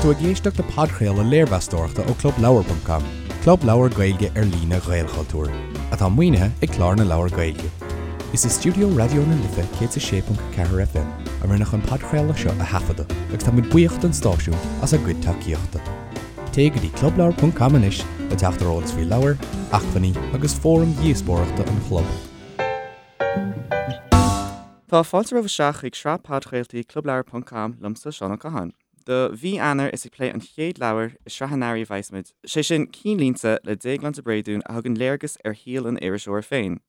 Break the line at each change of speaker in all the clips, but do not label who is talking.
tú ag éisteacht le podchraoladh léirmheastóireachta ó ClubLeabhar.com, club leabhar Gaeilge ar líne Ghaelchultúir, atá maoinithe ag Clár na Leabhar Gaeilge. Is i stiúideo Raidió na Life 106.4 FM a rinneadh an podchraoladh seo a thaifeadadh agus tá muid buíoch don stáisiún as a gcuid tacaíochta. Téigh go dtí clubleabhar.com anois le teacht ar eolas faoi leabhair, acmhainní agus fóraim dhíospóireachta an chlub.
Tá fáilte romhaibh isteach chuig sraith podchraoltaí Clubleabhar ponc com liomsa, Seán Ó Catháin. Do mhí Eanáir is ag plé an chéad leabhar i sraith an earraigh a bheas muid, sé sin Cinnlínte le Déaglán de Bréadún a thugann léargas ar shaol an iriseora féin.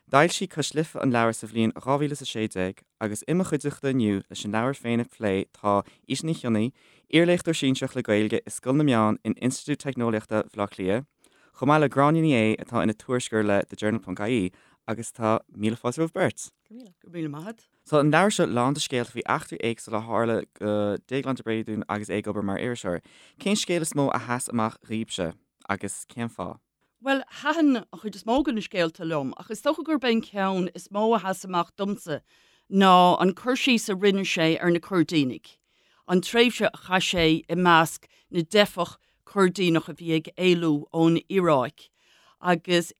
D'fhoilsigh Cois Life an leabhar sa bhliain 2016 agus i mo chuideachta inniu leis an leabhar féin a phlé tá Íte Ní Chionnaith, iarléachtóir sinsearach le Gaeilge i Scoil na Meán in Institiúid Teicneolaíochta Bhaile Átha Cliath, chomh maith le Gráinne Ní Aodha atá ina tuairisceoir le The Journal ponc ie agus tá míle fáilte romhaibh beirt.
Go raibh míle maith agat.
Tá an leabhar seo lán de scéalta faoi eachtraí éagsúla a tharla do Déaglán de Bréadún agus é ag obair mar iriseoir. Cén scéal is mó a sheas amach dhaoibhse agus cén fáth?
Bhuel, thaitin an chuid is mó de na scéalta liom, ach is dócha gurb é an ceann is mó a sheas amach domsa ná an cur síos a rinne sé ar na Coirdínigh, an tréimhse a chaith sé i measc na dteifeach Coirdíneach a bhí ag éalú ón Iaráic agus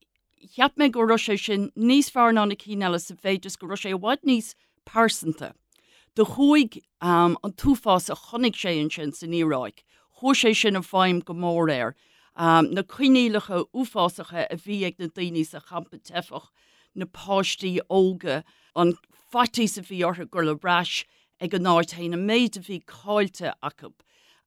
cheap mé go raibh sé sin níos fearr ná na cinn eile sa mhéid is go raibh sé i bhfad níos pearsanta. Do chuaigh an t-uafás a chonaic sé ansin san Iaráic, chuaigh sé sin i bhfeidhm go mór air. Na coinníollacha uafásacha a bhí ag na daoine sa champa teifeach, na páistí óga, an faitíos a bhí orthu dul ar ais ag an áit féin, an méid a bhí caillte acu.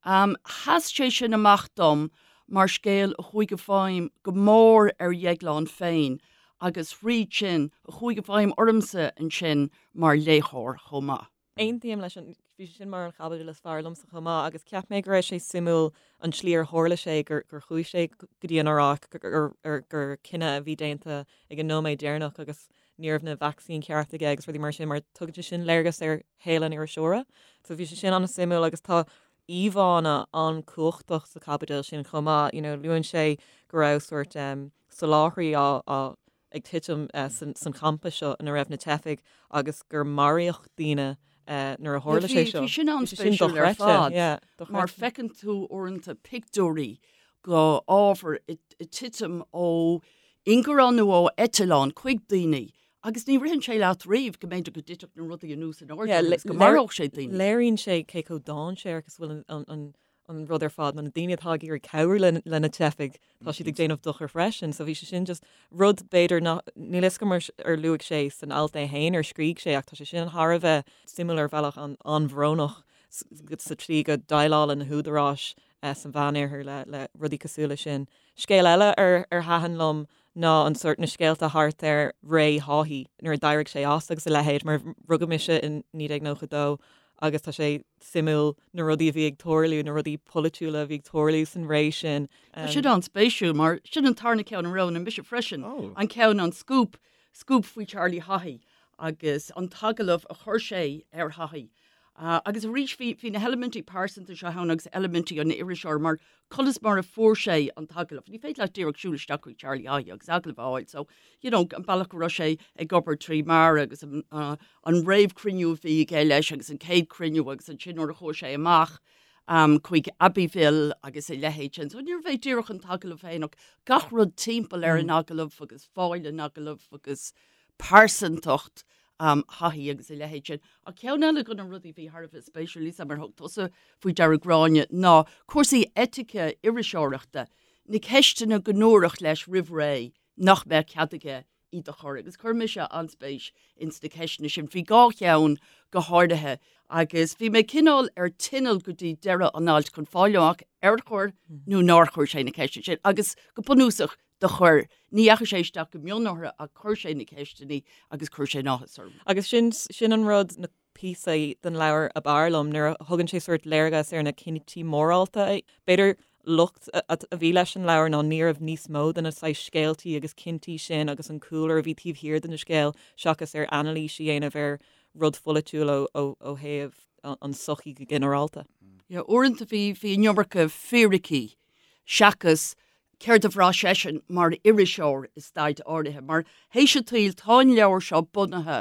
Sheas sé sin amach dom mar scéal a chuaigh i bhfeidhm go mór ar Dhéaglán féin agus thríd sin, a chuaigh i bhfeidhm ormsa ansin mar léitheoir chomh maith.
Aontaím leis an, bhí sé sin mar an chaibidil is fearr liomsa chomh maith agus cheap mé go raibh sé suimiúil an tslí ar tharla sé gur chuaigh sé go dtí an Iaráic, gur cinneadh a bhí déanta ag an nóiméad deireanach agus ní raibh na vacsaíní ceart aige agus rudaí mar sin mar tugann sé sin léargas ar shaol an iriseora. So bhí sé sin an-suimiúil agus tá íomhánna an-chumhachtach sa chaibidil sin chomh maith. You know, luann sé go raibh sórt um, soláthraí á, á ag titim uh, san, san champa seo ina raibh na teifigh agus gur maraíodh daoine uh, nuair a tharla sé seo.
Bhí sin an-spéisiúil ar fad yeah, mar feiceann tú uaireanta pictiúirí go ábhar ag titim ó ingearán nó ó eitleán chuig daoine agus ní ritheann sé leat riamh go mb'fhéidir go dtitfeadh na rudaí anuas in airde agus go maródh sé daoine.
Léiríonn sé cé chomh dainséarach is bhfuil an rud ar fad, nó na daoine atá ag iarraidh cabhrú le na teifigh, tá siad ag déanamh dochar freisin. So bhí sé sin just rud b'fhéidir nach, níl fhios agam ar luaigh sé san alt é féin ar scrígh sé ach tá sé sin thar a bheith suimiúil ar bhealach an-bhrónach sa tslí go déileálann na húdaráis sa Mheánoirthear le rudaí cosúil leis sin. Scéal eile ar ar thaitin liom ná an sórt na scéalta thart ar ré Haughey nuair a d'éirigh sé as agus a leithéid mar rugadh mise in 1992 agus tá sé suimiúil na rudaí a bhí ag tarlú, na rudaí polaitiúla a bhí ag tarlú san ré sin.
Tá sin an-spéisiúil mar sin an tarna ceann a roghnaigh mise freisin, an ceann an scúp, scúp faoi Charlie Haughey agus an t-agallamh a chuir sé ar Haughey. Agus arís bhí, bhí na heilimintí pearsanta seo ann agus eilimintí an iriseora mar conas mar a fuair sé an t-agallamh. Ní féidir leat díreach siúl isteach chuig Charlie Haughey agus agallamh a fháil. So, you know, an bealach go raibh sé ag obair trí Mara agus an, uh, an réamhchruinniú a bhí aige leis agus an chéad chruinniú agus ansin nuair a chuaigh sé amach um, chuig Abbeville agus a leithéid sin. So níorbh é díreach an t-agallamh féin ach gach rud timpeall ar an agallamh agus fáil an agallaimh agus pearsantacht Haughey agus a leithéid sin. Ach ceann eile de na rudaí a bhí thar a bheith spéisiúil, níl 's a'm ar thug tusa faoi deara Gráinne, ná cúrsaí eitice iriseoireachta, na ceisteanna go ndúradh leis roimh ré nach mbeadh cead aige iad a chur. Agus chuir mise an-spéis ins na ceisteanna sin. Bhí dhá cheann go háirithe agus bhí mé cineál ar tinneall go dtí deireadh an ailt chun fáil amach ar chuir nó nár chuir sé na ceisteanna sin. Agus go bunúsach do chuir. Ní dheachaigh sé isteach go mion orthu ach chuir sé na ceisteanna agus chuir sé an-áthas orm.
Agus sin, sin an rud, na píosaí den leabhar ab fhearr liom, nuair a thugann sé sórt léargas ar na cinntí mórálta a, b'fhéidir locht a bhí leis an leabhar ná ní raibh níos mó de na saghas scéaltaí agus cinntí sin agus an cúlra a bhí taobh thiar den scéal seachas ar anailís a dhéanamh ar rud pholaitiúil ó, ó, ó thaobh an sochaí go ginearálta.
Yeah, uaireanta bhí, bhí an iomarca fíricí seachas céard a bhraith seisean mar iriseoir i staid áirithe, mar théis an tsaoil tá an leabhar seo bunaithe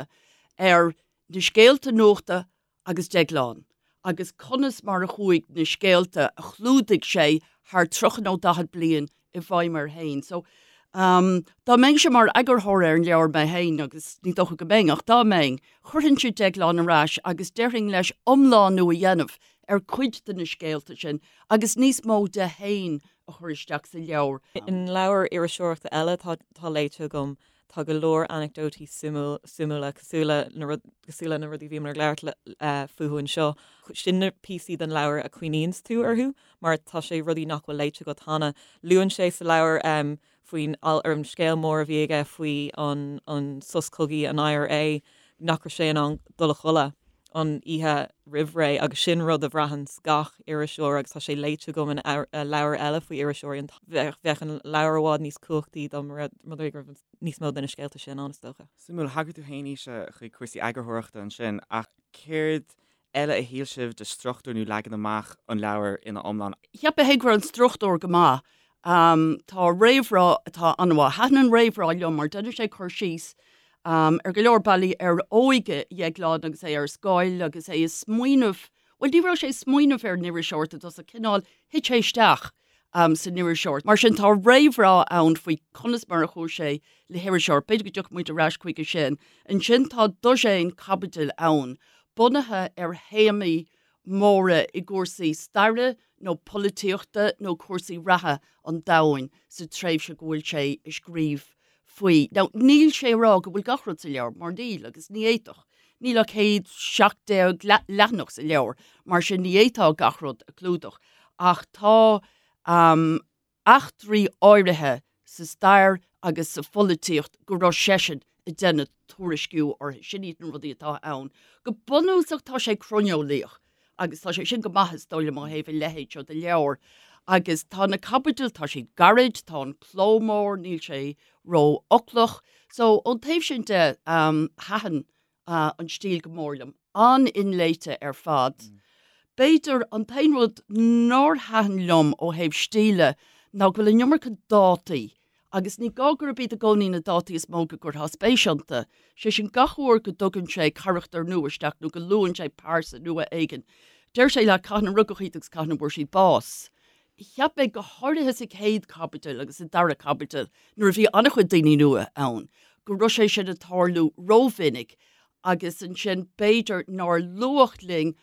ar na scéalta nuachta agus Déaglán. agus conas mar a chuaigh na scéalta a chlúdaigh sé thar 30 nó 40 bliain i bhfeidhm air féin. So, dá mbeinnse mar eagarthóir ar an leabhar mé féin, agus ní dócha go mbeinn, ach dá mbeinn, chuirfinnse Déaglán ar ais agus déarfainn leis iomlánú a dhéanamh ar cuid de na scéalta sin agus níos mó de féin a chur isteach sa leabhar.
In leabhair iriseoireachta eile atá léite agam, tá go leor anecdótaí suimiúla cosúil le na cosúil le na rudaí a bhíomar ag labhairt fúthu anseo. Sin na píosaí den leabhar a cuimhníonns tú orthu mar tá sé rudaí nach bhfuil léite agat cheana. Luann sé sa leabhar faoin ar an scéal mór a bhí aige faoi an an sos cogaidh an IRA nach raibh sé in ann dul a chodladh an oíche roimh ré agus sin rud a bhraitheanns gach iriseoir agus tá sé léite agam in leabhair eile faoi iriseoirí. Bheadh an leabhar i bhfad níos cumhachtaí dá mba rud é go raibh níos mó de na scéalta sin ann, is dócha.
Suimiúil, thagair tú féin, Naoise, chuig cúrsaí eagarthóireachta ansin ach céard eile a shíl sibh de struchtúr nó leagan amach an leabhair ina iomlán?
Cheap mé féin go raibh an struchtúr go maith. Tá réamhrá atá an-mhaith. Thaitin an réamhrá liom mar déanann sé cur síos ar go leor bealaí ar óige Dhéagláin agus é ar scoil agus é ag smaoineamh, bhuel ní raibh sé ag smaoineamh ar an iriseoireacht i dtosach, cineál thit sé isteach san iriseoireacht. Mar sin tá réamhrá ann faoi conas mar a chuaigh sé le hiriseoireacht, b'fhéidir go dtiocfaidh muid ar ais chuige sin. Ansin tá dosaen caibidil ann, bunaithe ar théamaí móra i gcúrsaí staire nó polaitíochta nó cúrsaí reatha an domhain sa tréimhse go bhfuil sé ag scríobh faoi. Now, níl sé ag rá go bhfuil gach rud sa leabhar, mar níl, agus ní fhéadfadh. Níl ach 117 leathanach sa leabhar, mar sin ní fhéadfá gach rud a chlúdach. Ach tá eachtraí áirithe sa stair agus sa pholaitíocht go raibh seisean ag déanamh tuairisciú orthu. Sin iad na rudaí atá ann. Go bunúsach tá sé croineolaíoch agus tá sé sin go maith is dóigh liom ó thaobh a leithéid seo de leabhar. Agus tá na caibidil, tá siad gairid, tá an cló mór, níl sé ró-fhoclach. So ón taobh sin de, thaitin an stíl go mór liom. An-inléite ar fad. B'fhéidir an t-aon rud nár thaitin liom ó thaobh stíle ná go bhfuil an iomarca dátaí agus ní gá gurb iad i gcónaí na dátaí is mó go gcuirfeá spéis iontu. Sé sin, gach uair go dtugann sé carachtar nua isteach nó go luann sé pearsa nua éigin, deir sé leat cathain a rugadh iad agus cathain a bhfuair siad bás. Cheap mé, go háirithe sa chéad chaibidil agus sa dara caibidil, nuair a bhí an-chuid daoine nua ann, go raibh sé sin ag tarlú rómhinic agus ansin b'fhéidir nár luadh linn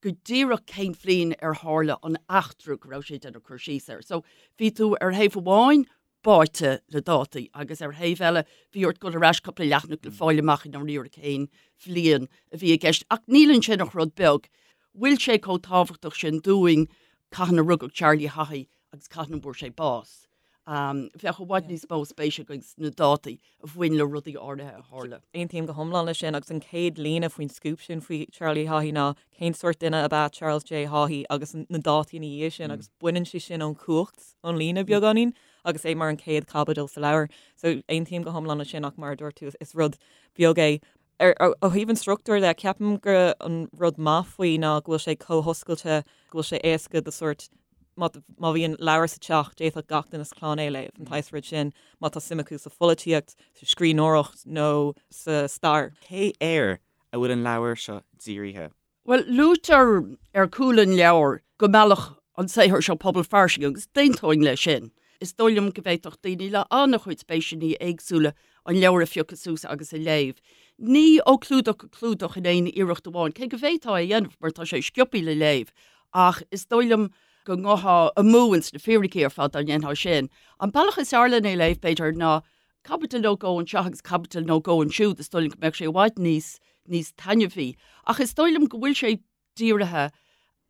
go díreach cén bhliain ar tharla an eachtra go raibh sé ag déanamh cur síos air. So bhí tú ar thaobh amháin báite le dátaí agus ar thaobh eile bhí ort dul ar ais cúpla leathanach le fáil amach i ndáiríre cén bhliain a bhí i gceist. Ach níl ansin ach rud beag. Bhfuil sé chomh tábhachtach sin dúinn cathain a rugadh Charlie Haughey agus cathain a bhfuair sé bás? Bheadh i bhfad níos mó spéise againn sna dátaí a bhain le rudaí áirithe a tharla.
Aontaím go hiomlán leis sin agus an chéad líne faoin scúp sin faoi Charlie Haughey ná cén sórt duine ab ea Charles J Haughey agus na dátaí ina dhiaidh sin agus baineann sé sin ón chumhacht ón líne beagáinín agus é mar an chéad chaibidil sa leabhar. So aontaím go hiomlán leis sin ach mar a dúirt tú is rud beag é. Ar ó thaobh an struchtúir de, ceapaim gur an rud maith faoi ná go bhfuil sé chomh hoscailte, go bhfuil sé éasca do sórt má má bhíonn leabhar sa teach, d'fhéadfadh gach duine sa chlann é a léamh, an saghas rud sin, má tá suim acu sa pholaitíocht, sa scríbhneoireacht nó sa stair.
Cé air a bhfuil an leabhar seo dírithe?
Bhuel, luaitear ar chúl an leabhair go meallfadh an saothar seo pobal fairsing agus d'aontóinn leis sin. Is dóigh liom go bhféadfadh daoine le an-chuid spéiseanna éagsúla an leabhar a phiocadh suas agus a léamh. Ní ó chlúdach go clúdach in aon iarracht amháin, cé go bhféadfá é a dhéanamh mar tá sé sciobtha le léamh, ach is dóigh liom go ngabhfá amú ins na fíricí ar fad dá ndéanfá sin. An bealach is fearr len é a léamh, b'fhéidir, ná caibidil nó dhó anseo agus caibidil nó dhó ansiúd, is dóigh liom go mbeadh sé i bhfad níos, níos taitneamhaí. Ach is dóigh liom go bhfuil sé dírithe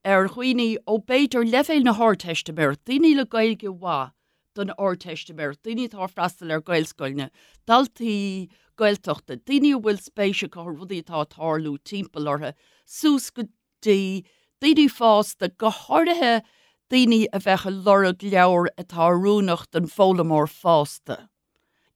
ar dhaoine ó b'fhéidir leibhéal na hArdteistiméireachta, daoine le Gaeilge mhaith don Ardteistiméireacht, daoine atá ag freastal ar Ghaelscoileanna, daltaí Gaeltachta, daoine a bhfuil spéis acu i rudaí atá ag tarlú timpeall orthu, suas go dtí daoine fásta, go háirithe daoine a bheadh ag lorg leabhar atá oiriúnach don bhfoghlaimeoir fásta.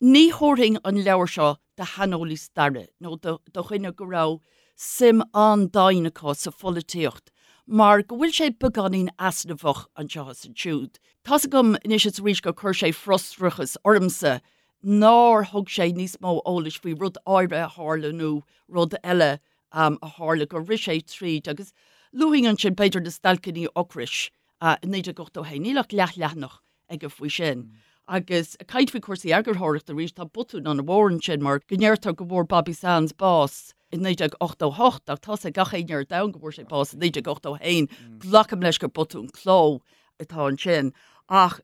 Ní thabharfainn an leabhar seo do shaineolaí staire nó do dhuine go raibh suim an-domhain acu sa pholaitíocht mar go bhfuil sé beagáinín easnamhach anseo is ansiúd. Tá's agam anois is arís gur chuir sé frustrachas ormsa nár thug sé níos mó eolais faoi rud áirithe a tharla nó rud eile a tharla, gur rith sé tríd agus. Luafainn ansin b'fhéidir na stailceanna ocrais i 1981, níl ach leathleathanach aige faoi sin. Agus ag caint faoi chúrsaí eagarthóireachta arís, tá botún an-mhór ansin mar go ndeirtear go bhfuair Bobby Sands bás i 1988 ach tá's ag gach éinne ar domhan go bhfuair sé bás i 1981. Glacaim leis gur botún cló atá ansin. Ach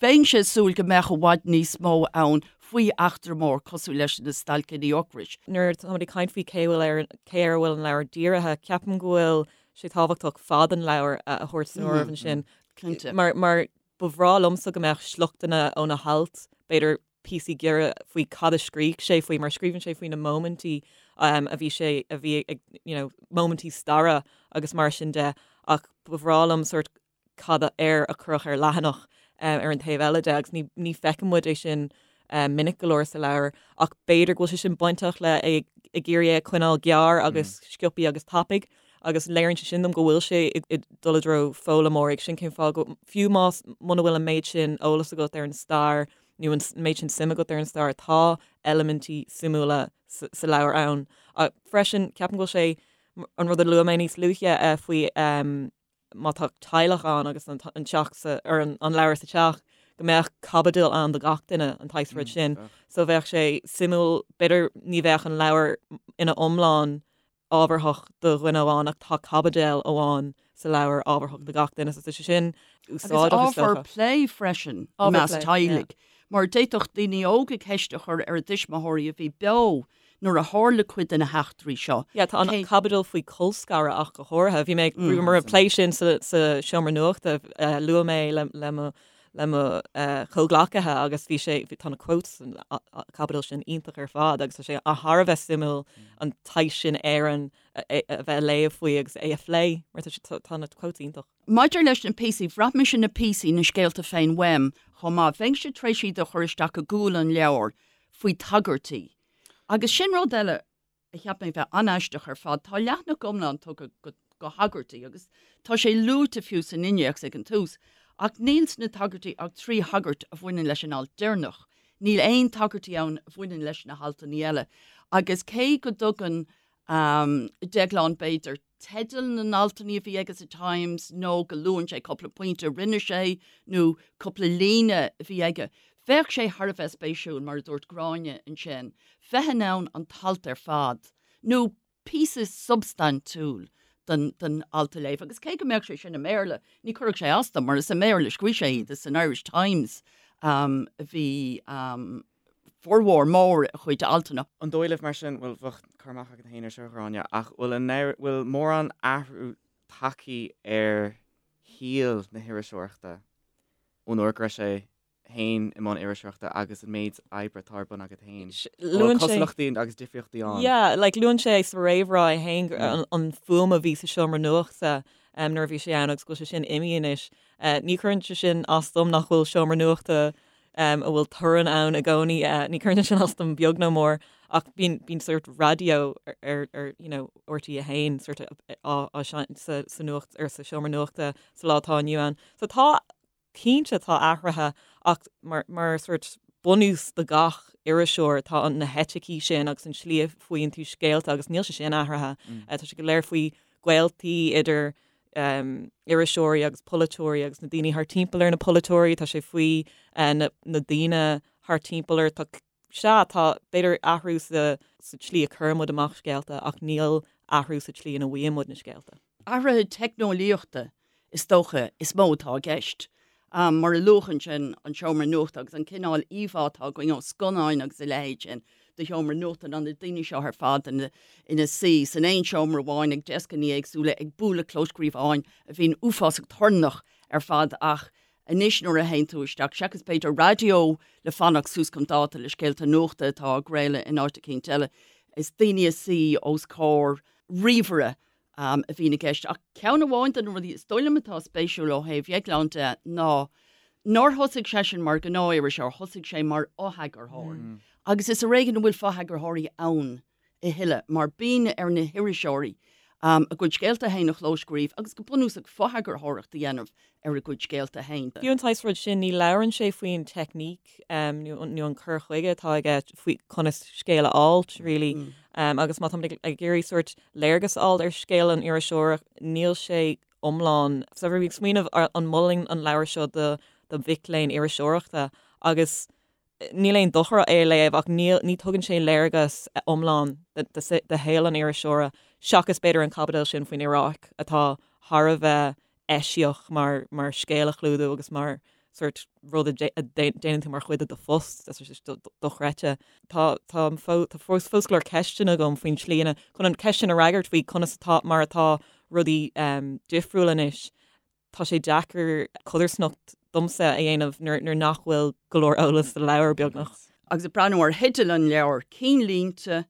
bheinnse ag súil go mbeadh i bhfad níos mó ann faoi eachtra mór cosúil leis na stailceanna ocrais.
Nuair atáimid ag caint faoi cé bhfuil ar cé air a bhfuil an leabhar dírithe, ceapaim go bhfuil sé tábhachtach fad an leabhair a thabhairt san áireamh ansin.
Cinnte.
Mar mar ba bhreá liomsa go mbeadh sliochtanna ó na hailt, b'fhéidir píosaí giorra faoi cad a scrígh sé faoi, mar scríobhann sé faoi na móimintí a bhí sé, a bhí ag, you know, móimintí staire agus mar sin de, ach ba bhreá liom sórt cad air a cuireadh ar leathanach ar an taobh eile de agus ní, ní feiceann muid é sin minic go leor sa leabhar ach b'fhéidir go bhfuil sé sin bainteach le é ag iarraidh é a choinneáil gearr agus sciobthaí agus tapaidh agus léiríonn sé sin dom go bhfuil sé ag dul i dtreo foghlaimeoirí. Sin cén fáth go, fiú más, muna bhfuil an méid sin eolas agat ar an stair nó an méid sin suim agat ar an stair, tá eilimintí suimiúla sa leabhar ann. Freisin, ceapaim go bhfuil sé, an rud a luaigh mé níos luaithe faoi má tá teaghlach ann agus an teach sa, ar an leabhar sa teach, go mbeadh caibidil ann do gach duine, an tsaghas rud sin. So bheadh sé suimiúil, b'fhéidir ní bheadh an leabhar ina iomlán ábharthach do dhuine amháin ach tá caibidil amháin sa leabhar ábharthach do gach duine so tá sé sin
úsáideach is dócha. Agus ábhar plé freisin i measc teaghlaigh mar d'fhéadfadh daoine óga ceist a chur ar a dtuismitheoirí a bhí beo nuair a tharla cuid de na heachtraí seo.
Yeah, tá an caibidil faoi colscaradh ach go háirithe. Bhí mé ag mar ag plé sin sa seomra nuachta, luaigh mé le mo le mo chomhghleacaithe agus bhí sé, tá na quotes san chaibidil sin iontach ar fad agus tá sé thar a bheith suimiúil an tsaghas sin Éireann a bheith a léamh faoi agus é a phlé mar tá na quotes iontach.
Maidir leis na píosaí, bhraith mise na píosaí, na scéalta féin uaim chomh maith. Bheinnse tar éis iad a chur isteach i gcúl an leabhair faoi tagairtí. Agus sin rud eile a cheap mé bheith an-aisteach ar fad. Tá leathanach iomlán tugtha do thagairtí agus tá sé luaite fiú san innéacs ag an tús, ach níl sna tagairtí ach 3 thagairt a bhaineann leis an alt deireanach. Níl aon tagairtí ann a bhaineann leis na haltanna eile. Agus cé go dtugann Déaglán, b'fhéidir, teidil na n-altanna a bhí aige sa Times nó go luann sé cúpla pointe a rinne sé nó cúpla líne a bhí aige. Bheadh sé thar a bheith spéisiúil, mar a dúirt Gráinne ansin, bheith in ann an t-alt ar fad, nó píosa substaintiúil den den alt a léamh. Agus cé go mbeadh sé sin i mBéarla, ní chuirfeadh sé as dom, mar is i mBéarla a scríobh sé iad, is san Irish Times a bhí formhór mór a chuid altanna.
An dóigh libh mar sin, bhuel, bheadh cur amach agat féin ar seo, a Ghráinne, ach bhfuil an, bhfuil mórán athrú tagtha ar shaol na hiriseoireachta ón uair go raibh sé féin i mbun iriseoireachta agus an méid oibre atá ar bun agat féin? An bhfuil cosúlachtaí agus difríochtaí ann?
Yeah, like luann sé sa réamhrá é féin an fuaim a bhí sa seomra nuachta nuair a bhí sé ann agus go bhfuil sé sin imithe anois. Ní chuireann sé sin as dom nach bhfuil seomra nuachta a bhfuil torann ann i gcónaí. Ní chuireann sé sin as dom beag nó mór ach bíonn bíonn sórt raidió ar ar you know RTÉ 1 sórt á á seinnt sa sa nuacht ar sa seomra nuachta sa lá atá inniu ann. So tá cinnte tá athruithe ach mar mar sórt bunús do gach iriseoir tá an na heiticí sin agus an tslí a bhfaigheann tú scéalta agus níl sé sin athraithe. Tá sé go léir faoi gaoltaí idir iriseoirí agus polaiteoirí agus na daoine thar timpeall ar na polaiteoirí, tá sé faoi na daoine thar timpeall ar, tá, sea, tá b'fhéidir athrú sa tslí a chuireann muid amach scéalta ach níl athrú sa tslí ina bhfaigheann muid na scéalta.
Athruithe teicneolaíochta is dócha is mó atá i gceist. Mar a luadh ansin, an seomra nuachta agus an cineál íomhá atá againn ó scannáin agus a leithéid sin de sheomra nuachta ná na daoine seo ar fad ina suí san aon seomra amháin ag deascanna éagsúla ag bualadh clóscríobháin a bhíonn uafásach torannach ar fad ach anois nuair a théann tú isteach, seachas b'fhéidir raidió le fanacht suas chun dáta le scéalta nuachta atá á gcraoladh in áit eicínt eile, is daoine ag suí os comhair ríomhaire a bhíonn i gceist. Ach ceann amháin de na rudaí is dóigh liom atá spéisiúil ó thaobh Dhéagláin de ná nár thosaigh seisean mar ghnáth-iriseoir, thosaigh sé mar fhotheagarthóir. Agus is ar éigean a bhfuil fotheagarthóirí ann a thuilleadh mar bíonn ar na hiriseoirí. A gcuid scéalta féin a chlóscríobh agus go bunúsach fotheagarthóireacht a dhéanamh ar a gcuid scéalta féin.
Fiú an saghas rud sin, ní labhrann sé faoin teicníc nó an cur chuige atá aige faoi conas scéal a fháilt, really. Agus má táimid ag iarraidh sórt léargas a fháil ar scéal an iriseora, níl sé iomlán. So bhí mé ag smaoineamh an molfainn an leabhar seo do mhic léinn iriseoireachta agus Níl aon dochar é a léamh ach níl, ní tugann sé léargas iomlán de shaol an iriseora, seachas b'fhéidir an chaibidil sin faoin Iaráic atá thar a bheith eisiach mar mar scéal a chlúdú agus mar sórt rud a déanann tú mar chuid de do phost, tá sé dochreidte. Tá tá tá fós fós go leor ceisteanna agam faoin tslí ina, chun an cheist sin a fhreagairt faoi conas atá, mar atá rudaí difriúil anois. Tá sé deacair codarsnacht domsa a dhéanamh nuair nach bhfuil go leor eolas sa leabhar, beagnach.
Agus ag breathnú ar theideal an leabhair, Cinnlínte,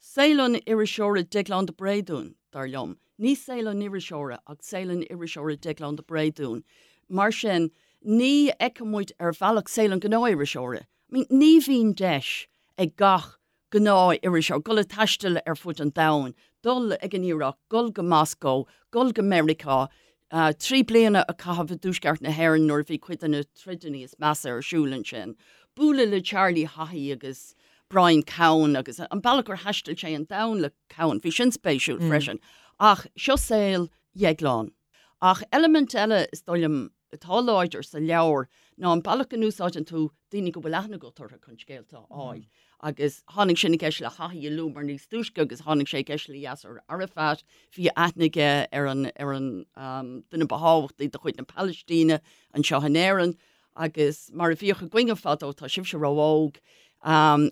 Saol an Iriseora Déaglán de Bréadún, dar liom. Ní saol an iriseora ach saol an iriseora Déaglán de Bréadún. Mar sin, ní fheiceann muid ar bhealach saol an ghnáth-iriseora. I mean, ní bhíonn deis ag gach gnáth-iriseoir, dul ag taisteal ar fud an domhain, dul ag an Iaráic, dul go Moscó, dul go Meiriceá, 3 bliana a chaitheamh i dTuaisceart na hÉireann nuair a bhí cuid de na troideanna is measa ar siúl ansin, bualadh le Charlie Haughey agus Brian Cowen agus an bealach gur thaistil sé an domhan le Cowen, bhí sin spéisiúil freisin. Ach seo saol Dhéagláin. Ach eilimint eile is dóigh liom atá láidir sa leabhar ná an bealach go n-úsáideann tú daoine go bhfuil aithne agat orthu chun scéalta a fháil. Agus tháinig sin i gceist le Haughey a luamar níos túisce agus tháinig sé i gceist le Yasser Arafat. Bhí aithne aige ar an ar an duine ba thábhachtaí de chuid na Palaistíne anseo in Éirinn. Agus mar a bhíodh againne fadó, tá sibhse ró-óg,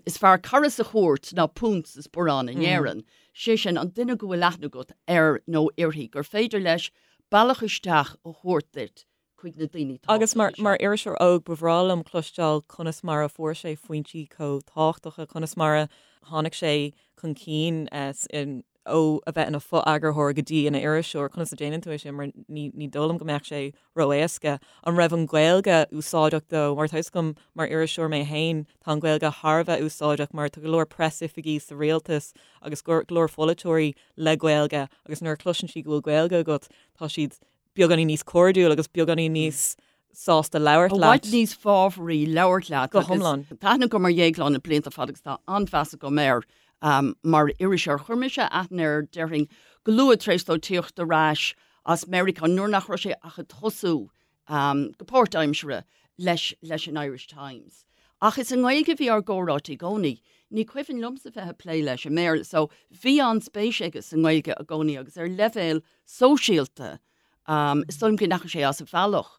is fearr cara sa chúirt ná punt sa sparán in Éirinn. Sé sin, an duine go bhfuil aithne agat air nó uirthi, gur féidir leis bealach isteach a thabhairt duit chuig na daoine
Agus mar tábhachtacha seo. iriseoir óg, ba bhreá liom cloisteáil conas mar a fuair sé foinsí chomh tábhachtacha, conas mar a tháinig sé chun cinn ó a bheith ina fho-eagarthóir go dtí ina iriseoir, conas a déanann tú é sin mar ní ní dóigh liom go mbeadh sé ró-éasca. An raibh an Ghaeilge úsáideach dó? Mar tá fhios agam mar iriseoir mé féin, tá an Ghaeilge thar a bheith úsáideach mar tá go leor preasoifigí sa rialtas agus go leor pholaiteoirí le Gaeilge agus nuair a chloiseann siad go bhfuil Gaeilge agat, tá siad beagáinín níos cairdiúil agus beagáinín níos sásta labhairt
leat. I bhfad níos fábhraí labhairt leat.
Go hiomlán.
Tá aithne agam ar Dhéaglán le blianta fada agus tá an-mheas agam air mar iriseoir. Chuir mise aithne air, déarfainn, go luath tar éis dó tíocht ar ais as Meiriceá nuair nach raibh sé ach ag tosú go páirtaimseartha leis leis an Irish Times. Ach is i nGaeilge a bhí ár gcomhráite i gcónaí. Ní cuimhin liomsa bheith ag plé leis i mBéarla so bhí an-spéis aige sa nGaeilge i gcónaí agus ar leibhéal sóisialta is dóigh liom go ndeachaigh sé as a bhealach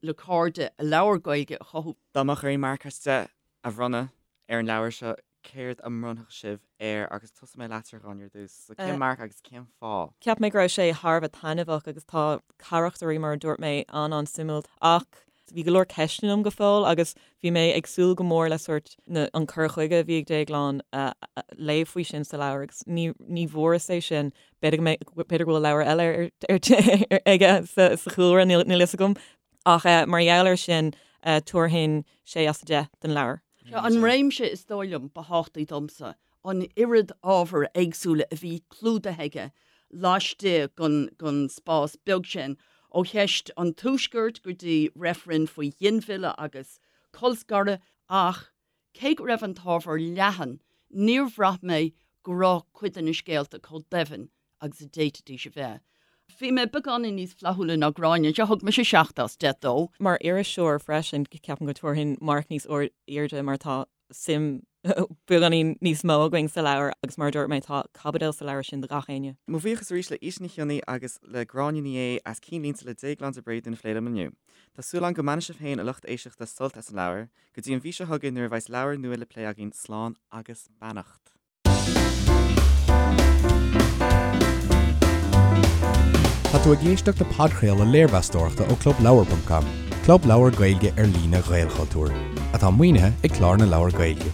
le cairde a labhair Gaeilge a chothú.
Dá mbeadh orainn marc as 10 a bhronnadh ar an leabhar seo, céard a mbronnfadh sibh air agus tosóidh mé leatsa a Ghráinne ar dtús. So cén marc agus cén fáth?
Cheap mé go raibh sé thar a bheith taitneamhach agus tá carachtairí mar a dúirt mé an-an-suimiúil ach bhí go leor ceisteanna agam go fóill agus bhí mé ag súil go mór le sórt na an cur chuige a bhí ag Déaglán a léamh faoi sin sa leabhar agus ní ní bhfuaireas é sin. B'fhéidir go mbeidh b'fhéidir go bhfuil leabhar eile ar ar aige sa sa chúlra níl níl fhios agam ach mar gheall air sin tabharfainn sé as 10 don leabhar.
Seo an réimse is dóigh liom ba thábhachtaí domsa, an oiread ábhair éagsúla a bhí clúdaithe aige laistigh den spás beag sin, ó cheist an Tuaiscirt go dtí reifreann faoi ghinmhilleadh agus colscaradh, ach cé go raibh an t-ábhar leathan, níor bhraith mé go raibh cuid de na scéalta chomh doimhin agus a d'fhéadfaidís a bheith. Bhí mé beagáinín níos flaithiúla ná Gráinne anseo, thug mise 7 as 10 dó.
Mar iriseoir freisin, ceapaim go dtabharfainn marc níos airde mar tá suim beagáinín níos mó againn sa leabhar agus mar a dúirt mé, tá caibidil sa leabhar sin do gach éinne.
Mo bhuíochas arís le Íte Ní Chionnaith agus le Gráinne Ní Aodha as Cinnlínte le Déaglán de Bréadún a phlé liom inniu. Tá súil agam go mbainfidh sibh féin, a lucht éisteachta, sult as an leabhar. Go dtí an mhí seo chugainn nuair a bheas leabhar nua le plé againn, slán agus beannacht. Tá tú ag éisteacht le podchraoladh léirmheastóireachta ó ClubLeabhar.com, club leabhar Gaeilge ar líne Ghaelchultúir, atá maoinithe ag Clár na Leabhar Gaeilge.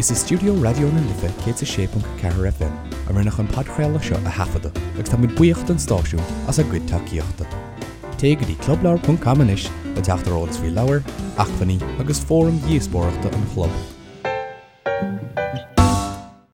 Is i stiúideo Raidió na Life 106.4 FM a rinneadh an podchraoladh seo a thaifeadadh agus táimid buíoch don stáisiún as a gcuid tacaíochta. Téigh go dtí clubleabhar.com anois le teacht ar eolas faoi leabhair, acmhainní agus fóraim dhíospóireachta an chlub.